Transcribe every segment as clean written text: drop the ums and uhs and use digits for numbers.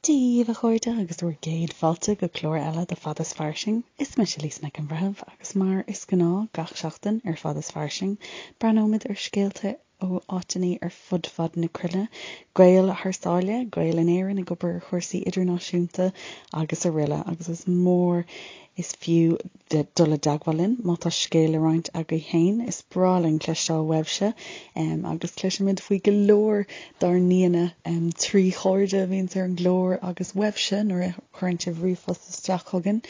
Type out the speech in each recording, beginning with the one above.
Dia daoibh, a chairde, agus bhur gcéad fáilte go clár eile de Fada is Fairsing. Is mise Lisa Nic an Bhreithimh agus mar is gnáth gach seachtain ar Fada is Fairsing, breathnóimid ar scéalta ó áiteanna ar fud fad na cruinne, Gaeil thar sáile, Gaeil in Éirinn ag obair ar chúrsaí idirnáisiúnta agus aroile agus is mór is fiú dul i dteagmháil linn má tá scéal le roinnt agaibh féin. Is breá linn cloisteáil uaibhse agus cloisimid faoi go leor dár n-aíonna trí chairde a bhíonns ar an gclár agus uaibhse nuair a chuireann sibh ríomhphost isteach chugainn.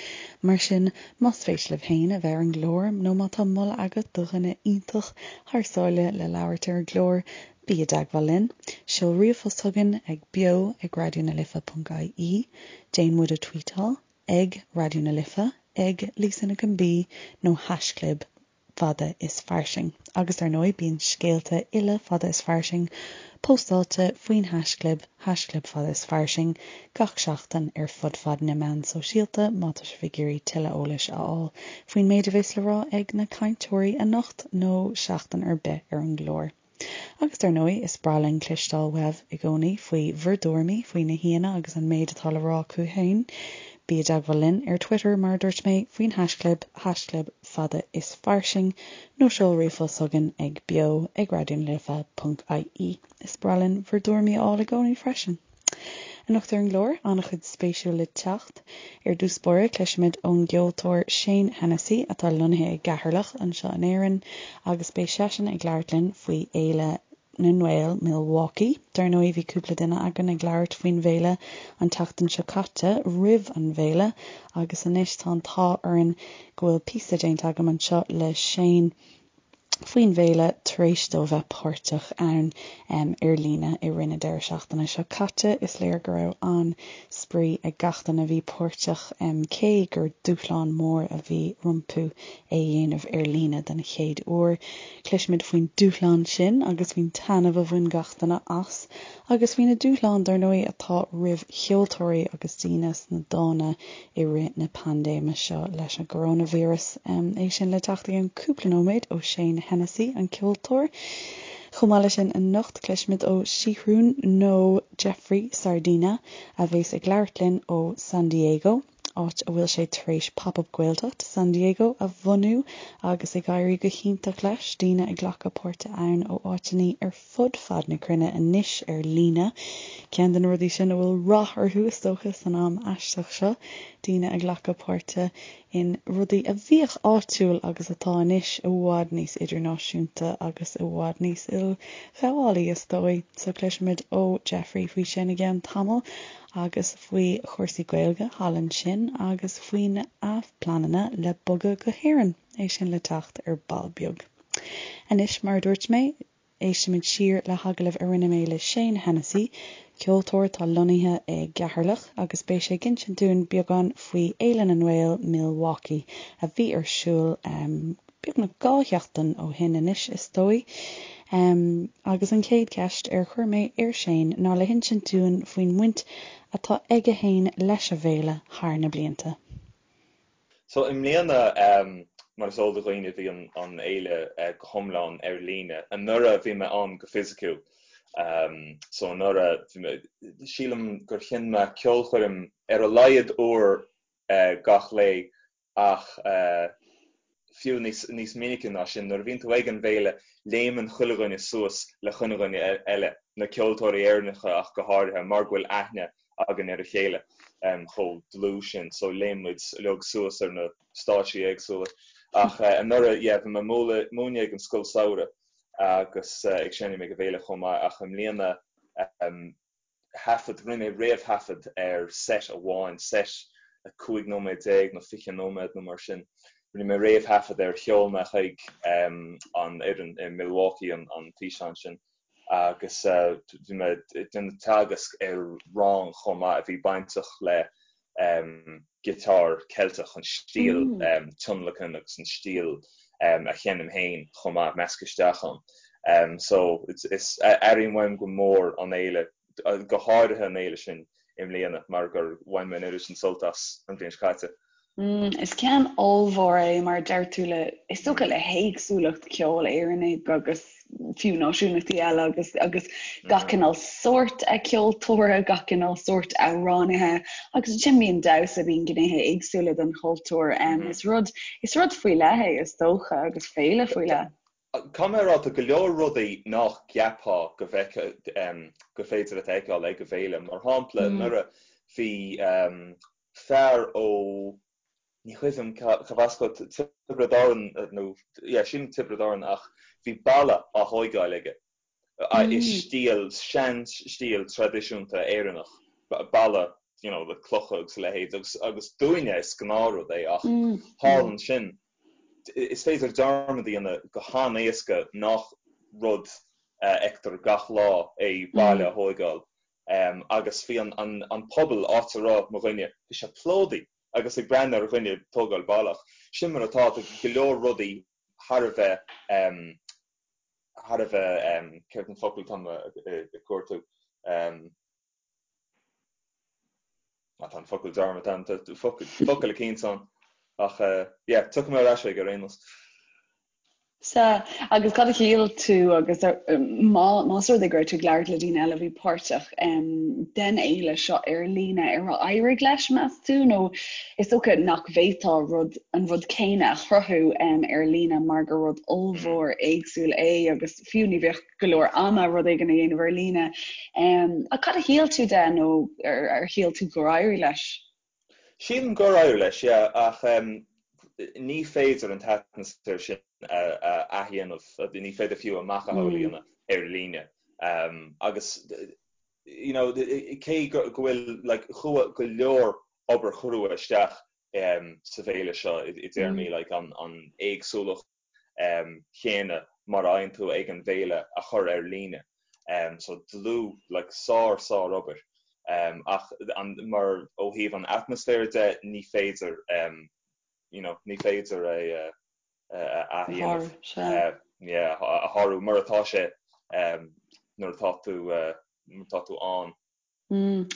Mar sin, más spéis libh féin a bheith ar an gclár nó má tá moladh agat do dhuine iontach thar sáile le labhairt ar an gclár, bí i dteagmháil linn. Seol ríomhphost chugainn ag beo ag raidionalife.ie, déan muid a tweetáil ag Raidió na Life, ag Lisa Nic an B nó haischlib Fada is Fairsing. Agus ar ndóigh bíonn scéalta uile Fada is Fairsing póstáilte faoin haischlib, haischlib Fada is Fairsing, gach seachtain ar fud fad na meán sóisialta má tá sibh ag iarraidh tuilleadh eolais a fháil faoin méid a bheas le rá ag na cainteoirí anocht nó seachtain ar bith ar an gclár. Agus dar ndóigh, is breá linn cloisteáil uaibh i gcónaí faoi bhur dtuairimí faoi na haíonna agus an méid atá le rá acu féin. Bí i dteagmháil linn ar Twitter, mar a dúirt mé, faoin haischlib, haischlib fada is fairsing, nó seol ríomhphost chugainn ag beo ag raidionalife.ie. Is breá linn bhur dtuairimí a fháil i gcónaí freisin. Anocht ar an gclár, an-chuid spéisiúil le teacht. Ar dtús báire, cloisfimid ón gceoltóir Shane Hennessy, atá lonnaithe i gCeatharlach anseo in Éirinn, agus beidh seisean ag labhairt linn faoi Fhéile na nGael Milwaukee. Dar ndóigh, bhí cúpla duine againn ag labhairt faoin bhféile an tseachtain seo caite, roimh an bhféile, agus anois tá an t-ádh orainn go bhfuil píosa déanta agam anseo le Shane, faoin bhféile tar éis dó bheith páirteach ann ar líne i rith na deireadh seachtaine seo caite. Is léir go raibh an-spraoi ag gach duine a bhí páirteach, cé gur dúshlán mór a bhí rompu é a dhéanamh ar líne den chéad uair. Cloisfimid faoin dúshlán sin agus faoin taitneamh a bhain gach duine as agus faoi na dúshláin, dar ndóigh, atá roimh cheoltóirí agus daoine sna dána i rith na paindéime seo leis an gcoróinvíreas. É sin le teacht i gceann cúpla nóiméad ó Shane Hennessy, an ceoltóir. Chomh maith leis sin anocht cloisfimid ó Seathrún nó Jeffrey Sardina a bheas ag labhairt linn ó San Diego, áit a bhfuil sé tar éis Pop Up Gaeltacht San Diego a bhunú agus ag éirí go hiontach leis, daoine ag glacadh páirte ann ó áiteanna ar fud fad na cruinne anois ar líne. Ceann de na rudaí sin a bhfuil rath orthu, is dócha, san am aisteach seo, daoine ag glacadh páirte in rudaí a bhíodh áitiúil agus atá anois i bhfad níos idirnáisiúnta agus i bhfad níos ilghabhálaí, is dóigh. So cloisfimid ó Jeffrey faoi sin i gceann tamaill agus faoi chúrsaí Gaeilge thall ansin agus faoina phleananna le bogadh go hÉirinn. É sin le teacht ar ball beag. Anois, mar a dúirt mé, éistfimid siar le hagallamh a rinne mé le Shane Hennessy, ceoltóir atá lonnaithe i gCeatharlach, agus beidh sé ag insint dúinn beagán faoi Fhéile na nGael Milwaukee a bhí ar siúl beagnach 2 sheachtain ó shin anois, is dóigh. Agus an chéad cheist ar chuir mé ar Shane ná le hinsint dúinn faoin mbaint atá aige féin leis an bhféile thar na blianta. So i mbliana, mar is eol do dhaoine, bhí an fhéile go hiomlán ar líne. Anuraidh bhí mé ann go fisiciúil. So anuraidh, bhí mé, sílim gur sheinn mé ceolchoirm ar a laghad uair gach lae ach fiú níos níos minice ná sin. Nuair a bhíonn tú ag an bhféile, léimeann chuile dhuine suas le chuile dhuine eile, na ceoltóirí Éireannacha ach go háirithe, mar go bhfuil aithne againn ar a chéile chomh dlúth sin so léim muid uilig suas ar na stáitsí éagsúla. Ach anuraidh, yeah, bhí mé ag múineadh ag an scoil samhraidh agus ag seinm ag an bhféile chomh maith ach i mbliana thaifead, rinne mé réamhthaifead ar set amháin, set 15 nóiméad nó 20 nóiméad nó mar sin. Rinne mé réamhthaifead air, sheol mé chuig an fhoireann i Milwaukee an físeán sin. agus bhí mé ag déanamh teagasc ar rang chomh maith a bhí bainteach le giotár Ceilteach, an stíl tionlacan agus an stíl a sheinnim féin chomh maith, measctha isteach ann. So is airím uaim go mór an fhéile, go háirithe an fhéile sin i mbliana mar gur bhain mé an oiread sin sult as an bhliain seo caite. Is ceann ollmhór é mar a deir tú le, is dócha le héagsúlacht ceoil Éireannaigh agus. fiú náisiúnachtaí eile agus agus gach cineál sórt ceoltóra, gach cineál sórt amhránaithe agus ansin bíonn damhsa, bíonn gnéithe éagsúla den chultúr. Is rud is rud faoi leith é is dócha agus féile faoi leith. Caithfidh mé a rá, tá go leor rudaí nach gceapfá go bhfeicfeá, gur féidir leat a fheiceáil ag an bhféile. Mar shampla, anuraidh bhí fear ó, ní cuimhin liom cad as dó, Tiobraid Árann nó, yeah, sílim Tiobraid Árann ach bhí balla á thóigeáil aige i stíl, sean-stíl traidisiúnta Éireannach, balla you know le clocha agus a leithéid agus agus dúinne is gnáthrud é ach thall ansin is féidir dearmad a dhéanamh go han-éasca nach rud a fheictear gach lá é baile a thóigeáil agus bhí an an an pobal áit a raibh mo dhuine, bhí sé plódaithe agus ag breathnú ar dhuine ag tógáil balla ach sin mar atá, tá go leor rudaí thar a bheith thar a bheith céard an focal atá mé ag cuartú? Tá an focal dearmadta ann, tá focal eicínt ann. Ach yeah, tiocfaidh mé ar ais aige ar aon nós. Sea, agus cad a shíl tú agus má más rud é go raibh tú ag labhairt le daoine eile a bhí páirteach den fhéile seo ar líne, ar éirigh leis, meas tú, nó is dócha nach bhféadfá rud, an rud céanna a chruthú ar líne mar gur rud ollmhór éagsúil é agus fiú ní bheadh go leor ama rud éigin a dhéanamh ar líne. Ach cad a shíl tú de nó ar shíl tú gur éirigh leis? Sílim gur éirigh leis, yeah, ach ní féidir an t-atmaisféar sin a athdhéanamh, ní féidir fiú a macasamhail a dhéanamh ar líne. Agus you know, cé go bhfuil like chuaigh go leor obair chrua isteach sa bhféile seo i dtéarmaí like an éagsúlacht, chéanna mar a fhaigheann tú ag an bhféile a chur ar líne. So dlúth, like sár sár obair. Ach an, mar ó thaobh an atmaisféir de ní féidir you know ní féidir é a athdhéanamh. Yeah, a shárú mar atá sé nuair atá tú nuair atá tú ann.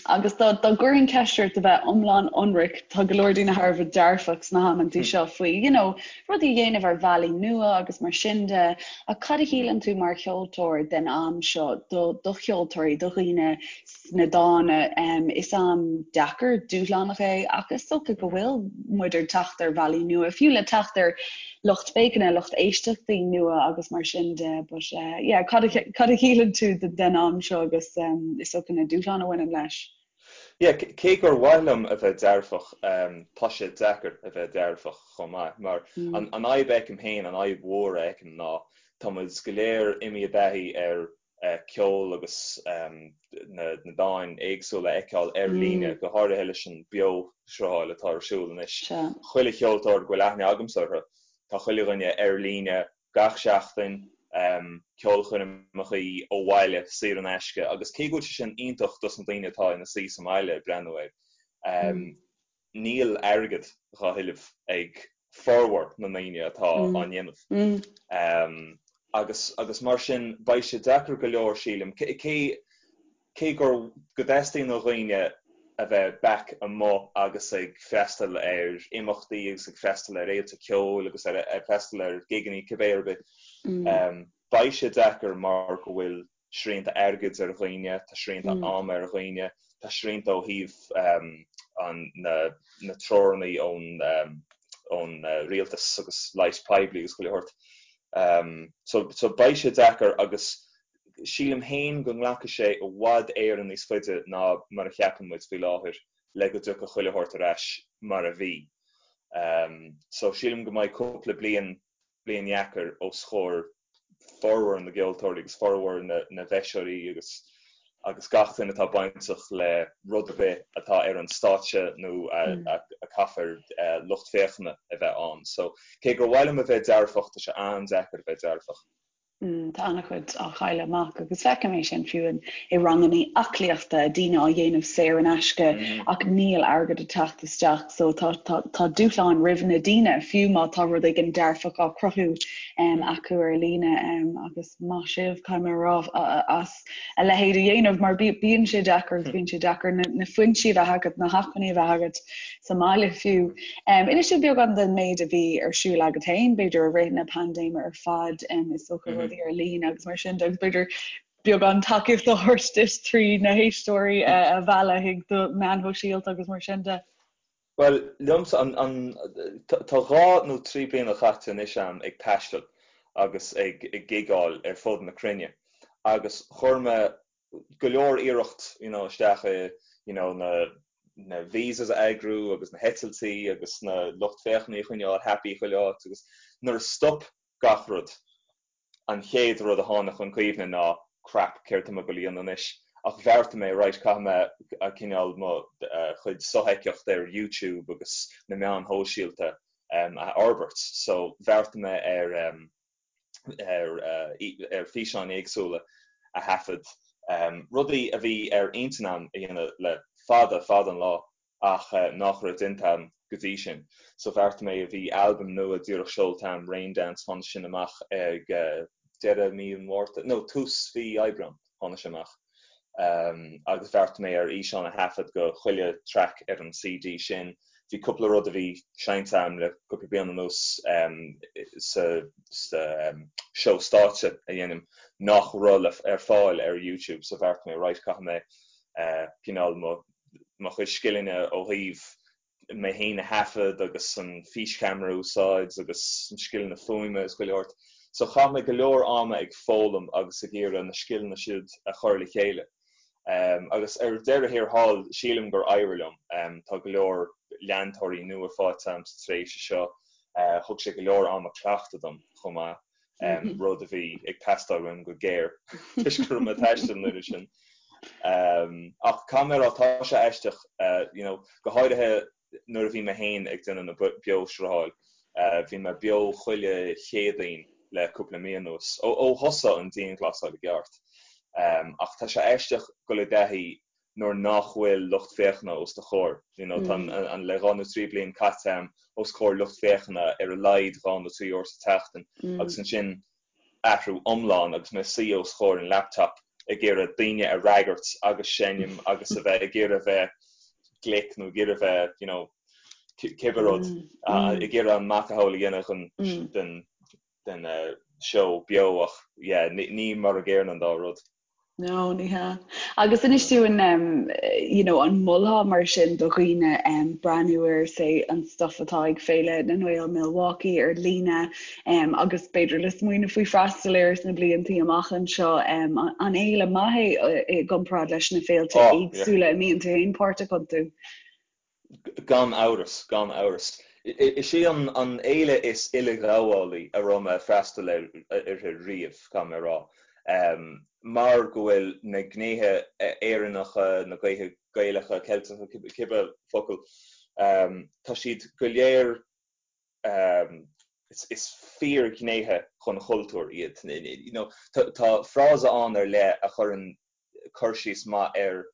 Agus dá gcuirfinn ceist ort a bheith iomlán ionraic, tá go leor daoine thar a bheith dearfach sna hamantaí seo faoi, you know, rudaí a dhéanamh ar bhealaí nua agus mar sin de, ach cad a shíleann tú mar cheoltóir den am seo do do cheoltóirí, do dhaoine sna dána? Is am deacair, dúshlánach é ach is dócha go bhfuil muid ag teacht ar bhealaí nua, fiú le teacht ar lucht féachana, lucht éisteachtaí nua agus mar sin de but yeah cad a cad a shíleann tú den am seo agus is dócha na dúshláin a bhaineann leis? Yeah, cé gur mhaith liom a bheith dearfach, tá sé deacair a bheith dearfach chomh maith mar an an fhadhb a fheicim féin, an fhadhb mhór a fheicim ná tá muid go léir imithe i dtaithí ar ceol agus na dáin éagsúla a fheiceáil ar líne, go háirithe leis an beo-srutháil atá ar siúl anois. Chuile cheoltóir go bhfuil aithne agamsa orthu, tá chuile dhuine ar líne gach seachtain, ceolchoirmeacha ó bhaile, saor in aisce, agus cé go bhfuil sé sin iontach dos na daoine atá ina suí sa mbaile ag breathnú air, níl airgead dhá thuilleamh ag formhór na ndaoine atá á ndéanamh. Agus agus mar sin beidh sé deacair go leor sílim, cé cé gur go dteastaíonn ó dhaoine a bheith back amuigh agus ag freastal ar imeachtaí agus ag freastal ar fhéilte ceoil agus ar ag freastal ar gigeanna cibé ar bith, beidh sé deacair mar go bhfuil srianta airgid ar dhaoine, tá srianta ama ar dhaoine, tá srianta ó thaobh na na treoranna ón ón rialtas agus leighis poiblí agus chuile shórt. So so beidh sé deacair agus sílim féin go nglacfaidh sé i bhfad Éireann níos faide ná mar a cheapann muid faoi láthair le go dtiocfaidh chuile shórt ar ais mar a bhí. So sílim go mbeidh cúpla bliain bliain dheacair os chomhair formhór na gceoltóirí agus formhór na bhfeiseoirí agus agus gach duine atá bainteach le rud ar bith atá ar an stáitse nó a caithfear lucht féachana a bheith ann. So cé gur mhaith liom a bheith dearfach, tá sé an-deacair a bheith dearfach. Tá an-chuid á chailleadh amach agus feicim é sin fiú i ranganna aclaíochta, daoine á dhéanamh saor in aisce ach níl airgead ag teacht isteach so tá tá tá dúshláin roimh na daoine fiú má tá rud éigin dearfach á cruthú acu ar líne agus maith sibh caithfidh mé a rá as a leithéid a dhéanamh mar bíonn sé deacair agus bíonn sé deacair na foinsí a bheith agat, na hacmhainní a bheith agat sa mbaile fiú. Inis dúinn beagán den méid a bhí ar siúl agat féin, b'fhéidir i rith na paindéime ar fad, is dócha rud. rudaí ar líne agus mar sin de agus b'fhéidir beagán tacaíocht a thabhairt duit trí na héisteoirí a mhealladh chuig do meáin shóisialta agus mar sin de. Bhuel, liomsa, an, tá dhá nó trí bliana caite anois a'm ag taisteal agus ag gigeáil ar fud na cruinne agus chuir mé go leor iarracht you know isteach i you know na na visas a eagrú agus na heitiltí agus na lucht féachana a choinneáil happy chuile áit agus nuair a stop gach rud an chéad rud a tháinig chun cuimhne ná crap, céard tá mé ag dul a dhéanamh anois? Ach bheartaigh mé, right, caithfidh mé cineál mo chuid sofheictheacht ar YouTube agus na meáin shóisialta a fhorbairt. So bheartaigh mé ar ar ar físeáin éagsúla a thaifead, rudaí a bhí ar intinn a'm a dhéanamh le fada, fada an lá. ach nach raibh déanta a'm go dtí sin. So bheartaigh mé, bhí albam nua díreach seolta a'm, Rain Dance, tháinig sin amach ag deireadh mí an Mhárta, no, tús mhí Aibreán tháinig sé amach. Agus bheartaigh mé ar fhíseán a thaifead go chuile track ar an CD sin. Bhí cúpla rud a bhí seinnte a'm le cúpla bliain anuas sa seó stáitse a dhéanaim nach raibh ar fáil ar YouTube, so bheartaigh mé, right, caithfidh mé cineál mo mo chuid scileanna ó thaobh mé féin a thaifead agus an físcheamara a úsáid agus na scileanna fuaime is chuile shórt. So chaith mé go leor ama ag foghlaim agus ag iarraidh na scileanna siúd a chur le chéile. Agus ar deireadh thiar thall, sílim gur éirigh liom. Tá go leor leantóirí nua faighte agam sa tréimhse seo. Thug sé go leor ama cleachtaidh dom chomh maith. rud a bhí ag teastáil uaim go géar toisc go raibh mé ag taisteal an oiread sin. Ach caithfidh mé a rá, tá sé aisteach, you know, go háirithe nuair a bhí mé féin ag déanamh na beoshrutháil, bhí mé beo chuile Chéadaoin le cúpla mí anuas, ó thosaigh an dianghlasáil i gceart. Ach tá sé aisteach dul i dtaithí nuair nach bhfuil lucht féachana os do chomhair. You know, tá an le dhá nó trí bliain caite a'm os comhair lucht féachana ar a laghad dhá nó trí uair sa tseachtain agus ansin athrú iomlán agus mé ag suí os comhair an laptop ag iarraidh daoine a fhreagairt agus seinm agus a bheith ag iarraidh bheith glic nó ag iarraidh bheith, you know, cibé rud, ag iarraidh an macasamhail a dhéanamh den den den seó beo ach yeah, ní mar a gcéanna an dá rud. No, ní hea. Agus inis dúinn, you know, an molfá mar sin do dhaoine breathnú ar, say, an stuff atá ag Féile na nGael Milwaukee ar líne agus b'fhéidir le smaoineamh faoi freastal air sna bliantaí amach anseo. An fhéile maith é i gcomparáid leis na féilte éagsúla a mbíonn tú féin páirteach iontu? Gan amhras, gan amhras. Is í an fhéile is uileghabhálaí a raibh mé ag freastal uirthi riamh, caithfidh mé a rá, mar go bhfuil na gnéithe Éireannacha, na gnéithe Gaelacha, Ceilteacha, cibé focal, tá siad go léir, is fíorghnéithe den chultúr iad. You know, tá frása ann ar leith a chuireann cur síos maith ar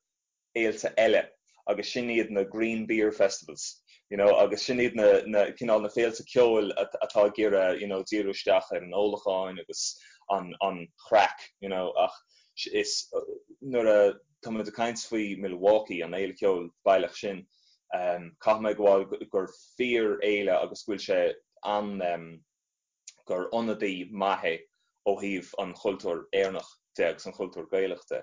fhéilte eile agus sin iad na green beer festivals you know agus sin iad na na cineál na féilte ceoil atá ag iarraidh you know díriú isteach ar an ólacháin agus an an chraic you know ach is nuair a tá muid ag caint faoi Milwaukee an fhéile ceoil baileach sin um caithfidh mé a admháil gur fíor fhéile agus go bhfuil sé an um gur ionadaí maith é ó thaobh an chultúir Éireannach de agus an chultúr Gaelach de.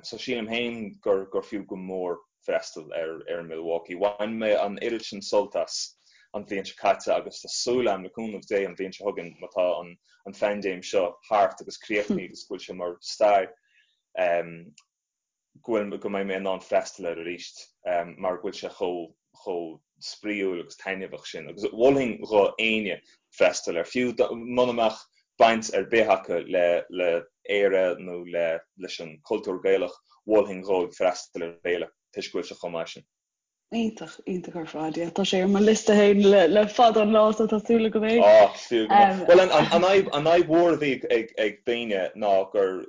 So sílim féin gur gur fiú go mór freastal ar ar Milwaukee. Bhain mé an oiread sin sult as an bhliain seo caite agus tá súil agam le cúnamh Dé an bhliain seo chugainn má tá an an phaindéim seo thart agus críochnaithe agus go bhfuil sé mar stair go bhfuil, go mbeidh mé in ann freastal air arís mar go bhfuil sé chomh, chomh spraíúil agus taitneamhach sin. Agus mholfainn dho éinne freastal air, fiú muna mbeadh baint ar bith acu le, le Éire nó le, leis an cultúr Gaelach, mholfainn dhóibh freastal ar an bhféile toisc go bhfuil sé chomh maith sin. Iontach, iontach ar fad, yeah. Tá sé ar mo liosta féin le, le fada an lá so tá súil agam go mbeidh. Á, is fiú go mór. Bhuel, an, an, an fhadhb, an fhadhb mhór a bhí ag, ag daoine ná gur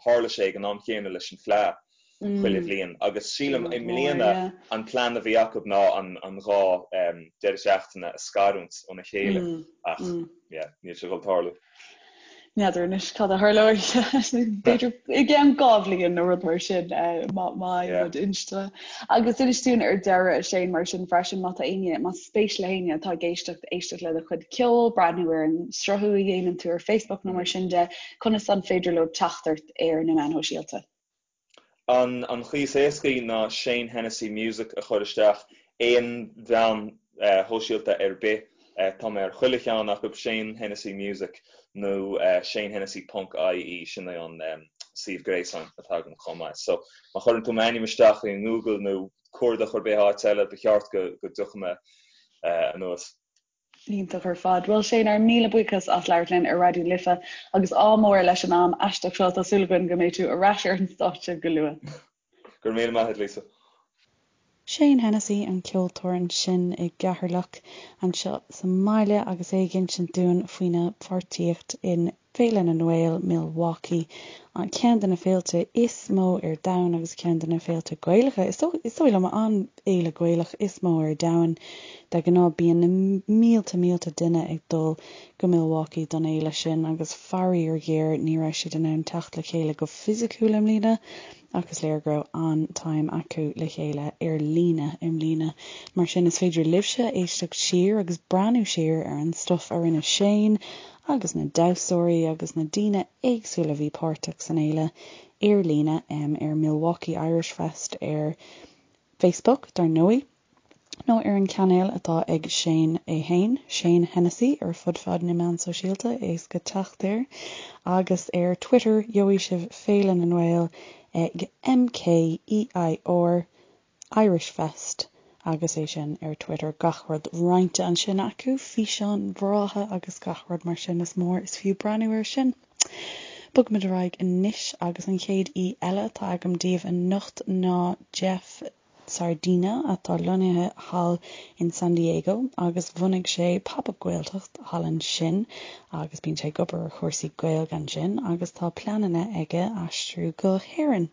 tharla sé ag an am chéanna leis an Fleadh chuile bhliain agus sílim i mbliana an plean a bhí acu ná an, an dhá deireadh seachtaine a scarúint óna chéile ach, yeah, níl sé ag dul tarlú. N'fheadar anois cad a tharlóidh. B'fhéidir i gceann 2 bhliain nó rud mar sin má fhaigheann muid inste. Agus inis dúinn ar deireadh, a Shane, mar sin freisin, má tá éinne, más spéis le héinne atá ag éisteacht, éisteacht le do chuid ceoil, breathnú ar an sruthú a dhéanann tú ar Facebook nó mar sin de, conas an féidir leo teacht ort ar na meáin shóisialta? An chaoi is éascaí ná Shane Hennessy Music a chur isteach aon mheán shóisialta ar bith. Tá mé ar chuile cheann acu, Shane Hennessy Music nó shanehennessy ponc ie, sin é an suíomh gréasáin atá agam chomh maith. So má chuireann tú m'ainm isteach i nGoogle nó cuardach ar bith áit eile, ba cheart go dtiocfaidh mé anuas. Iontach ar fad. Bhuel Shane, ár míle buíochas as labhairt linn ar Raidió na Life agus ádh mór leis an am aisteach seo. Tá súil againn go mbeidh tú ar ais ar an stáitse go luath. Go raibh míle maith agat Lisa. Shane Hennessy, an ceoltóir ansin i gCeatharlach anseo sa mbaile agus é ag insint dúinn faoina pháirtíocht in Féile na nGael, Milwaukee, ceann de na féilte is mó ar domhan agus ceann de na féilte Gaelacha, is dóigh liom, an fhéile Gaelach is mó ar domhan. De ghnáth bíonn na mílte mílte duine ag dul go Milwaukee don fhéile sin agus faraor géar ní raibh siad in ann teacht le chéile go fisiciúil i mbliana ach is léir go raibh an-time acu le chéile ar líne i mbliana. Mar sin is féidir libhse éisteacht siar agus breathnú siar ar an stuif a rinne Shane agus na damhsóirí agus na daoine éagsúla a bhí páirteach san fhéile ar líne ar Milwaukee Irish Fest ar Facebook, dar ndóigh, nó ar an chainéal atá ag Shane é féin, Shane Hennessy, ar fud fad na meán sóisialta, éasca teacht air, agus ar Twitter gheobhaidh sibh Féile na nGael ag MKEIR Irish Fest agus é sin ar Twitter, gach rud roinnte ansin acu, físeáin bhreátha agus gach rud mar sin, is mór is fiú breathnú air sin. Bogfaimid ar aghaidh anois agus an chéad aoi eile atá agam daoibh anocht ná Jeff Sardina atá lonnaithe thall in San Diego agus bhunaigh sé Pop Up Gaeltacht thall ansin agus bíonn sé ag obair ar chúrsaí Gaeilge ansin agus tá pleananna aige aistriú go hÉirinn.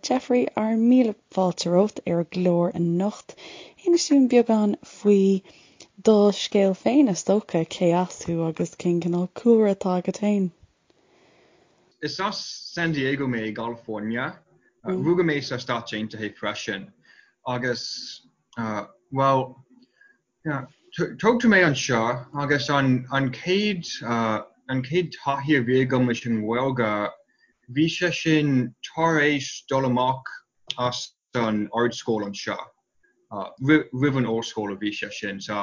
Jeffrey, ár míle fáilte romhat ar an gclár anocht. Inis dúinn beagán faoi do scéal féin, is dócha, cé as thú agus cén cineál cúlra atá agat féin? Is as San Diego mé i gCalifornia. Rugadh mé sa Stáit Aontaithe freisin agus, bhuel, Tógadh mé anseo agus an chéad an chéad taithí a bhí agam leis an nGaeilge, bhí sé sin tar éis dul amach as an ardscoil anseo, roimh an ollscoil a bhí sé sin. So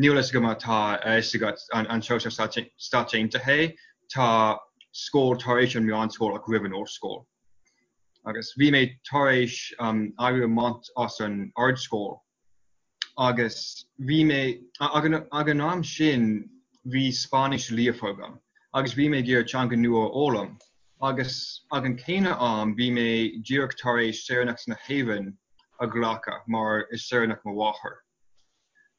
níl a fhios agam má tá a fhios agat anseo sa Stáit Aontaithe, tá scoil tar éis an meánscoil ach roimh an ollscoil. Agus bhí mé tar éis éirí amach as an ardscoil Agus bhí mé, ag an am sin bhí Spáinnis líofa agam agus bhí mé ag iarraidh teanga nua a fhoghlaim agus ag an céanna am bhí mé díreach tar éis saoránacht na hÉireann a ghlacadh mar is saoránach mo mháthair.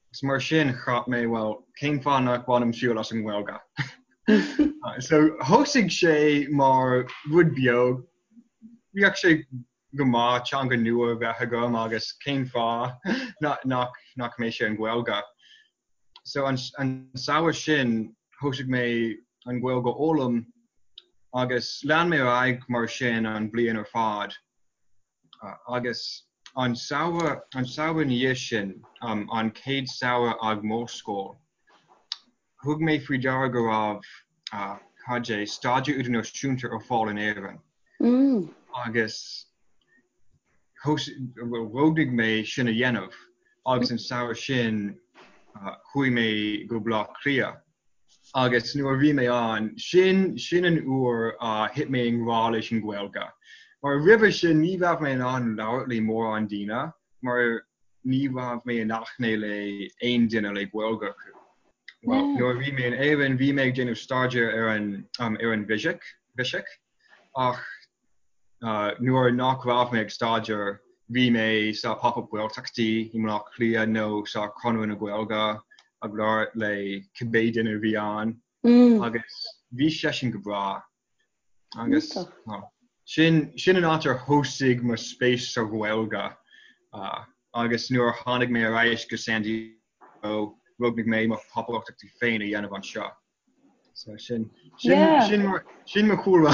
Agus mar sin cheap mé bhuel cén fáth nach bhainim triail as an nGaeilge? So thosaigh sé mar rud beag, bheadh sé go maith teanga nua a bheith agam agus cén fáth nach mbeadh sé an Ghaeilge. So an samhradh sin thosaigh mé an Ghaeilge a fhoghlaim agus lean mé ar aghaidh mar sin an bhliain ar fad agus an samhradh an samhradh ina dhiaidh sin, an chéad samhradh ag m'ollscoil, Thug mé faoi deara go raibh, cad é, staidéar idirnáisiúnta ar fáil in Éirinn agus roghnaigh mé sin a dhéanamh agus an samhradh sin chuaigh mé go Baile Átha Cliath agus nuair a bhí mé ann, sin, sin an uair a thit mé i ngrá leis an Ghaeilge. Mar roimhe sin ní raibh mé in ann labhairt le mórán daoine mar ní raibh mé in aithne le aon duine le Gaeilge acu. Well, nuair a bhí mé in Éirinn, bhí mé ag déanamh staidéar ar an ar an bhfisic, bhfisic, ach nuair nach raibh mé ag staidéar, bhí mé sa Pop-Up Gaeltachtaí i mBaile Átha Cliath nó sa Chonradh na Gaeilge ag labhairt le cibé duine a bhí ann agus bhí sé sin go breá. Agus sin sin an áit ar thosaigh mo spéis sa Ghaeilge agus nuair a tháinig mé ar ais go San Diego roghnaigh mé mo Pop-Up Gaeltachtaí féin a dhéanamh anseo. So sin sin sin mar sin mo chúlra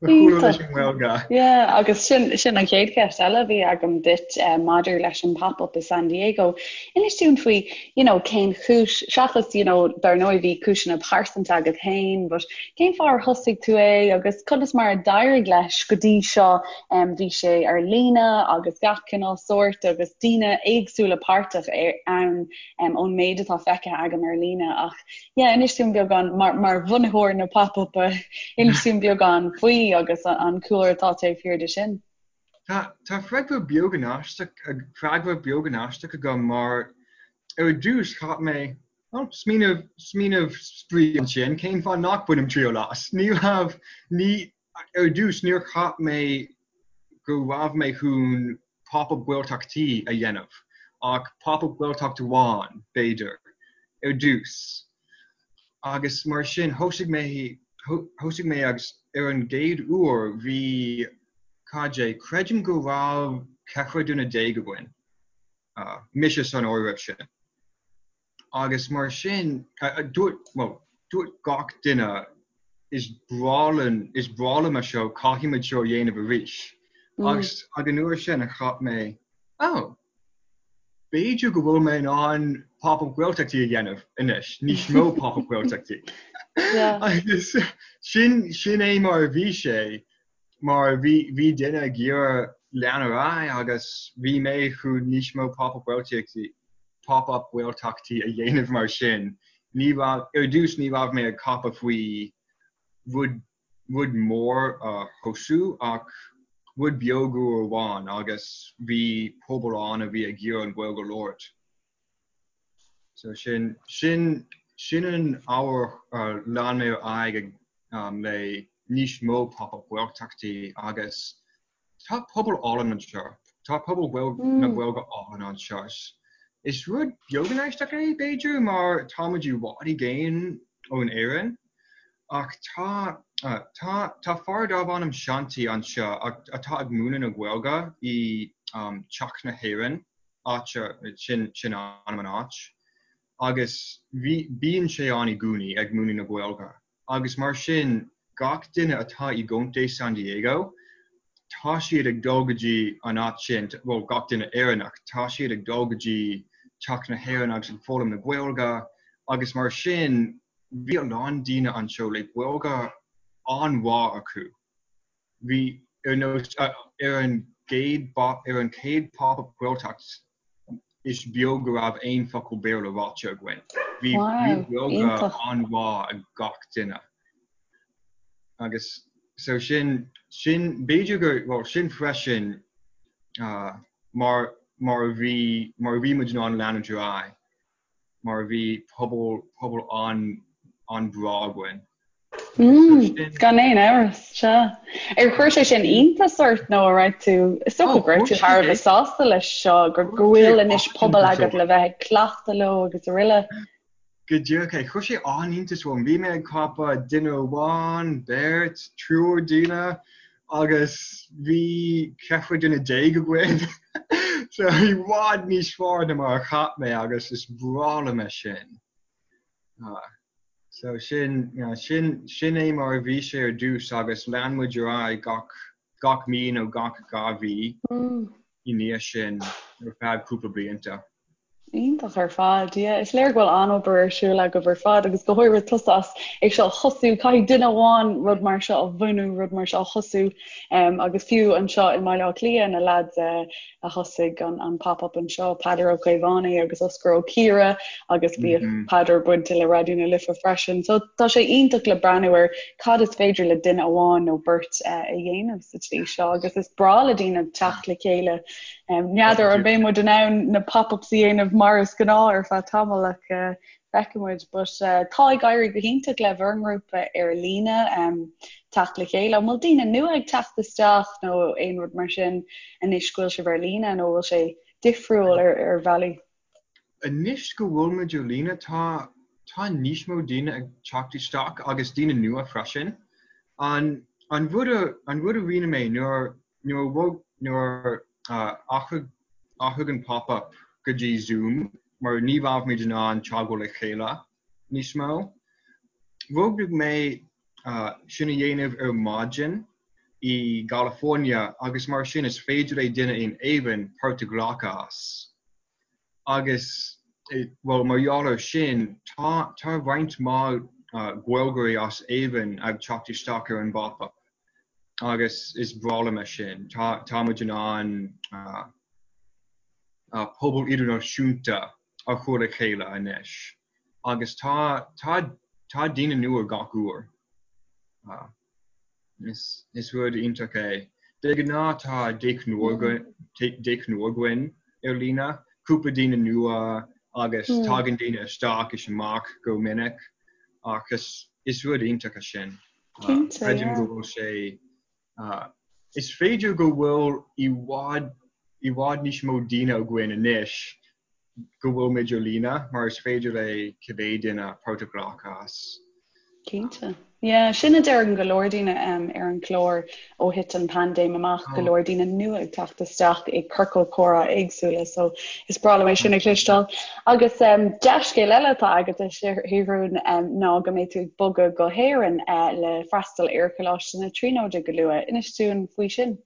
mo chúlra leis an nGaeilge. Yeah, agus sin sin an chéad cheist eile a bhí agam duit eh, maidir leis an pop-up i San Diego. Inis dúinn faoi, you know, cén chúis, seachas, you know, dar ndóigh bhí cúiseanna pearsanta agat féin, but cén fáth ar thosaigh tú é agus conas mar a d'éirigh leis go dtí seo? Um, bhí sé ar líne agus gach cineál sóirt agus daoine éagsúla páirteach ann um, ón méid atá feicthe agam ar líne ach yeah, inis dúinn beagán mar, mar bhunaitheoir na pop-up inis dúinn beagán faoi agus an, an cúlra atá taobh thiar de sin. Tá, tá freagra beagán aisteach, freagra beagán aisteach agam mar ar dtús cheap mé oh, smaoineamh, smaoineamh spraoi ansin, cén fáth nach bainim triail as? Ní raibh, ní, ar dtús níor cheap mé go raibh mé chun Pop-Up Gaeltachtaí a dhéanamh, ach Pop-Up Gaeltacht amháin, b'fhéidir, ar dtús. Agus mar sin, thosaigh mé, thosaigh mé agus ar an gcéad uair bhí, cad é, creidim go raibh 14 duine againn, mise san áireamh sin. Agus mar sin, dúirt, bhuel, dúirt gach duine, is breá linn, is breá liom é seo, caithfimid seo a dhéanamh arís. Agus ag an uair sin a cheap mé, oh, b'fhéidir go bhfuil mé in ann Pop-Up Gaeltachtaí a dhéanamh anois, níos mó Pop-Up Gaeltachtaí. Agus sin, sin é mar a bhí sé, mar bhí, bhí duine ag iarraidh lean ar aghaidh agus bhí mé chun níos mó Pop-Up Gaeltachtaí, Pop-Up Gaeltachtaí a dhéanamh mar sin. Ní raibh, ar dtús ní raibh mé ag ceapadh faoi rud, rud mór a thosú ach rud beag uair amháin agus bhí pobal ann a bhí ag iarraidh an Ghaeilge a labhairt. So sin, sin, sin an ábhar a lean mé ar aghaidh ag, le níos mó Pop-Up Gaeltachtaí agus Tá pobal álainn anseo. Tá pobal na Gaeilge álainn anseo. Is rud beagán aisteach é, b'fhéidir, mar táimid i bhfad i gcéin ón Éirinn. Ach tá, tá, tá fear darb ainm Shanti anseo atá ag múineadh na Gaeilge i Teach na hÉireann, áit, sin, sin ainm an áit. Agus bhí, bíonn sé ann i gcónaí ag múineadh na Gaeilge. Agus mar sin, gach duine atá i gContae San Diego, tá siad ag dul go dtí an áit sin, bhuel, gach duine Éireannach, tá siad ag dul go dtí Teach na hÉireann agus ag foghlaim na Gaeilge agus mar sin, bhí a lán daoine anseo le Gaeilge an-mhaith acu. Bhí, ar nós, ar an gcéad, ar an chéad Pop-Up Gaeltacht, is beag go raibh aon focal Béarla ráite againn. Bhí Gaeilge an-mhaith ag gach duine. Agus so sin, sin, b'fhéidir gur, bhuel, sin freisin mar, mar a bhí, mar a bhí muid in ann leanúint ar aghaidh. mar bhí pobal, pobal an, an-bhreá againn. Mm, gan aon amhras, sea. Ar chuir sé sin iontas ort nó an raibh tú, is dócha go raibh tú thar a bheith sásta leis seo, go bhfuil anois pobal agat le bheith ag cleachtadh leo agus araile. Go díreach é. Chuir sé an-iontas orm. Bhí mé ag ceapadh duine amháin, beirt, triúr daoine agus bhí 14 duine againn. So i bhfad níos fearr ná mar a cheap mé agus is breá liom é sin. So sin, sin, sin é mar a bhí sé ar dtús agus lean muid ar aghaidh gach, gach mí nó gach 2 mhí i ndiaidh sin ar feadh cúpla blianta. Iontach ar fad, yeah. Is léir go bhfuil an-obair ar siúl agaibh ar fad agus go háirithe tusa as é seo a thosú. Caithfidh duine amháin rud mar seo a bhunú, rud mar seo a thosú um, agus fiú anseo i mBaile Átha Cliath na lads uh, a thosaigh an, an pop-up anseo, Peadar Ó Caomhánaigh agus Oscar Ó Ciara agus bhíodh mm -hmm. Peadar bainte le Raidió na Life freisin. So tá sé iontach le breathnú ar cad is féidir le duine amháin nó beirt uh, a dhéanamh sa tslí seo agus is breá le daoine teacht le chéile N'fheadar an mbeidh muid in ann na pop-ups a dhéanamh mar is gnáth ar feadh tamaill ach feicfidh muid. But tá ag éirí go hiontach le bhur ngrúpa ar líne teacht le chéile. An bhfuil daoine nua ag teacht isteach nó aon rud mar sin anois go bhfuil sibh ar líne nó bhfuil sé difriúil ar ar bhealaí? Anois go bhfuil muid ar líne tá tá níos mó daoine ag teacht isteach agus daoine nua freisin. An an rud a an rud a rinne mé nuair Nuair a bhog, nuair a athraigh, athraigh an pop-up go dtí Zoom mar ní raibh muid in ann teagmháil le chéile níos mó. Roghnaigh mé sin a dhéanamh ar maidin i gCalifornia agus mar sin is féidir le duine in Éirinn páirt a ghlacadh as. Agus, bhuel, mar gheall ar sin, tá tá roinnt mhaith Gaeilgeoirí as Éirinn ag teacht isteach ar an bpop-up agus is breá liom é sin. Tá tá muid in ann pobal idirnáisiúnta a chur le chéile anois agus tá tá tá daoine nua gach uair. Is is rud iontach é. De ghnáth tá deichniúr deichniúr againn ar líne, cúpla daoine nua agus tagann daoine isteach is amach go minic ach is is rud iontach é sin. Creidim go bhfuil sé Is féidir go bhfuil i bhfad i bhfad níos mó daoine againn anois go bhfuil muid ar líne mar is féidir le cibé duine páirt a ghlacadh as. Cinnte. Yeah, sin a deireann go leor daoine ar an chlár ó thit an paindéim amach, go leor daoine nua ag teacht isteach i ciorcail comhrá éagsúla, so is breá liom é sin a chloisteáil. Agus dea-scéal eile atá agat a Sheathrúin ná go mbeidh tú ag bogadh go hÉirinn le freastal ar Choláiste na Tríonóide go luath. Inis dúinn faoi sin.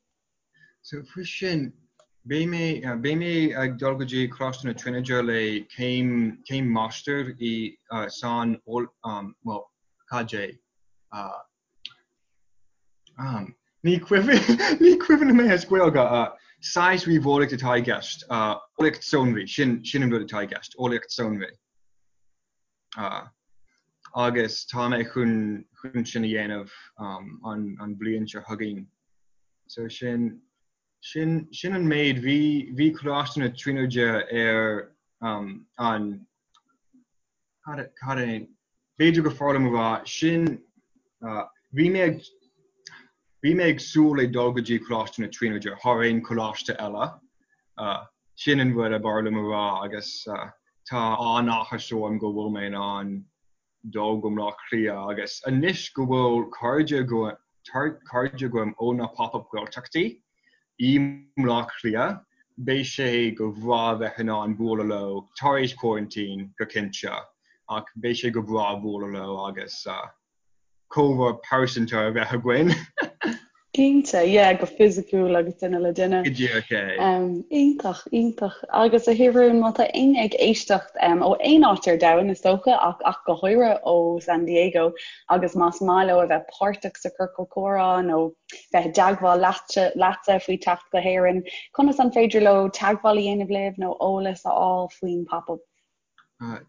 So faoi sin, beidh mé beidh mé ag dul go dtí Coláiste na Tríonóide le céim céim máistir i san bhuel cad é Ní cuimhin ní cuimhin liom é as Gaeilge. Saghas ríomheolaíocht atá i gceist. Eolaíocht sonraí, sin sin an rud atá i gceist, eolaíocht sonraí. Agus tá mé chun chun sin a dhéanamh an an bhliain seo chugainn. So sin sin sin an méid. Bhí bhí Coláiste na Tríonóide ar an Cad é? B'fhéidir gur fearr liom a rá sin, bhí mé ag, bhí mé ag súil le dul go dtí Coláiste na Tríonóide thar aon choláiste eile. Sin an rud ab fhearr liom a rá agus tá an-áthas orm go bhfuil mé in ann dul go Baile Átha Cliath agus anois go bhfuil cairde cairde agam ó na Pop-Up Gaeltachtaí i mBaile Átha Cliath, beidh sé go breá bheith in ann bualadh leo tar éis coraintín, go cinnte, ach beidh sé go breá bualadh leo agus comhrá pearsanta a bheith againn. Cinnte, yeah, go fisiciúil agus duine le duine. Go díreach é. Iontach, iontach. Agus a Sheathrúin, má tá éinne ag éisteacht ó aon áit ar domhan, is dócha, ach ach go háirithe ó San Diego, agus más maith leo a bheith páirteach sa Chiorcal Comhrá nó bheith i dteagmháil leatsa faoi teacht go hÉirinn, conas an féidir leo teagmháil a dhéanamh libh nó eolas a fháil faoin Pop Up?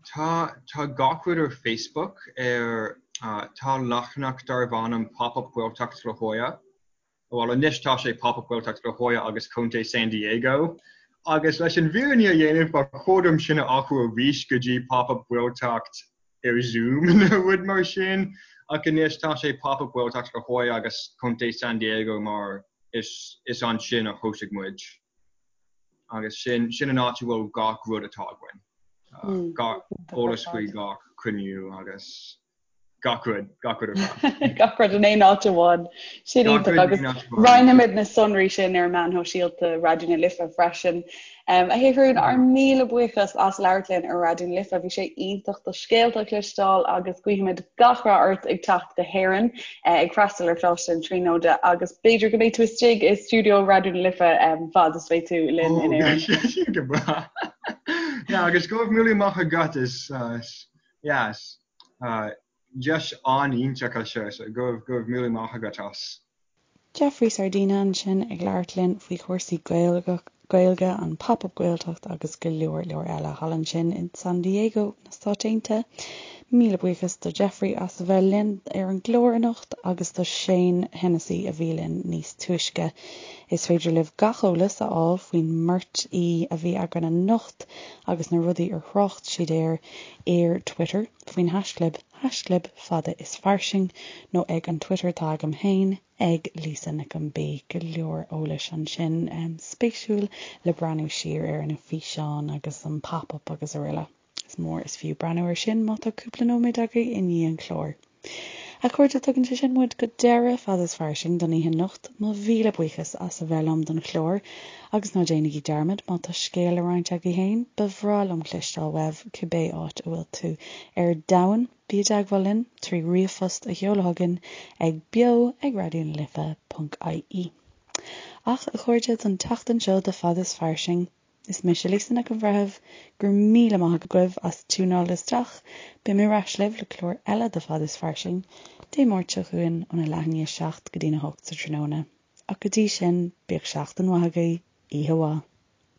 Tá tá gach rud ar Facebook ar tá leathanach darb ainm Pop Up Gaeltacht La Jolla. Bhuel anois tá sé Pop Up Gaeltacht La Jolla agus Contae San Diego. Agus leis an bhfírinne a dhéanamh ba chóir dom sin a athrú arís go dtí Pop Up Gaeltacht ar Zoom nó rud mar sin ach anois tá sé Pop Up Gaeltacht La Jolla agus Contae San Diego mar is is ansin a thosaigh muid agus sin sin an áit a bhfuil gach rud atá againn. Gach eolas faoi gach cruinniú agus gach rud, gach rud ar fad. Gach rud in aon áit amháin. Sin iontach agus roinnfimid na sonraí sin ar meáin shóisialta Raidió na Life freisin. A Sheathrúin, ár míle buíochas as labhairt linn ar Raidió na Life. Bhí sé iontach do scéalta a chloisteáil agus guímid gach rath ort ag teacht go hÉirinn ag freastal ar Choláiste na Tríonóide agus b'fhéidir go mbeidh tú istigh i stiúideo Raidió na Life fad is bheidh tú linn in Éirinn. Sin go breá. Yeah, agus go raibh míle maith agat is yes, deis an-iontach é seo so go raibh míle maith agat as. Jeffrey Sardina ansin ag labhairt linn faoi chúrsaí Gaeilge, an Pop Up Gaeltacht agus go leor leor eile thall ansin in San Diego na Stáit Aontaithe. Míle buíochas do Jeffrey as a bheith linn ar an gclár anocht agus do Shane Hennessy a bhí linn níos túisce. Is féidir libh gach eolas a fháil faoin mbeirt aoi a bhí againn anocht agus na rudaí ar thrácht siad air ar Twitter faoin haischlib haischlib fada is fairsing nó ag an Twitter atá agam féin ag Lisa Nic an B. Go leor eolais ansin spéisiúil le breathnú siar ar na físeáin agus an pop up agus araile. Is mór is fiú breathnú ar sin má tá cúpla nóiméad agaibh i ndiaidh an chláir. A chairde, tugann sé sin muid go deireadh Fada is Fairsing don oíche anocht. Mo mhíle buíochas as a bheith liom don chlár agus ná déanaigí dearmad, má tá scéal le roinnt agaibh féin, ba bhreá liom cloisteáil uaibh cibé áit a bhfuil tú ar domhan. Bí i dteagmháil linn trí ríomhphost a sheoladh chugainn ag beo ag raidió na life ponc ie. Ach, a chairde, don tseachtain seo de Fada is Fairsing, Is mise Lisa Nic an Bhreithimh. Go raibh míle maith agaibh as tiúnáil isteach. Beidh mé ar ais libh le clár eile de Fada is Fairsing Dé Máirt seo chugainn óna leath i ndiaidh a 7 go dtína 8 sa tráthnóna. Ach go dtí sin, bíodh seachtain mhaith agaibh. Oíche mhaith.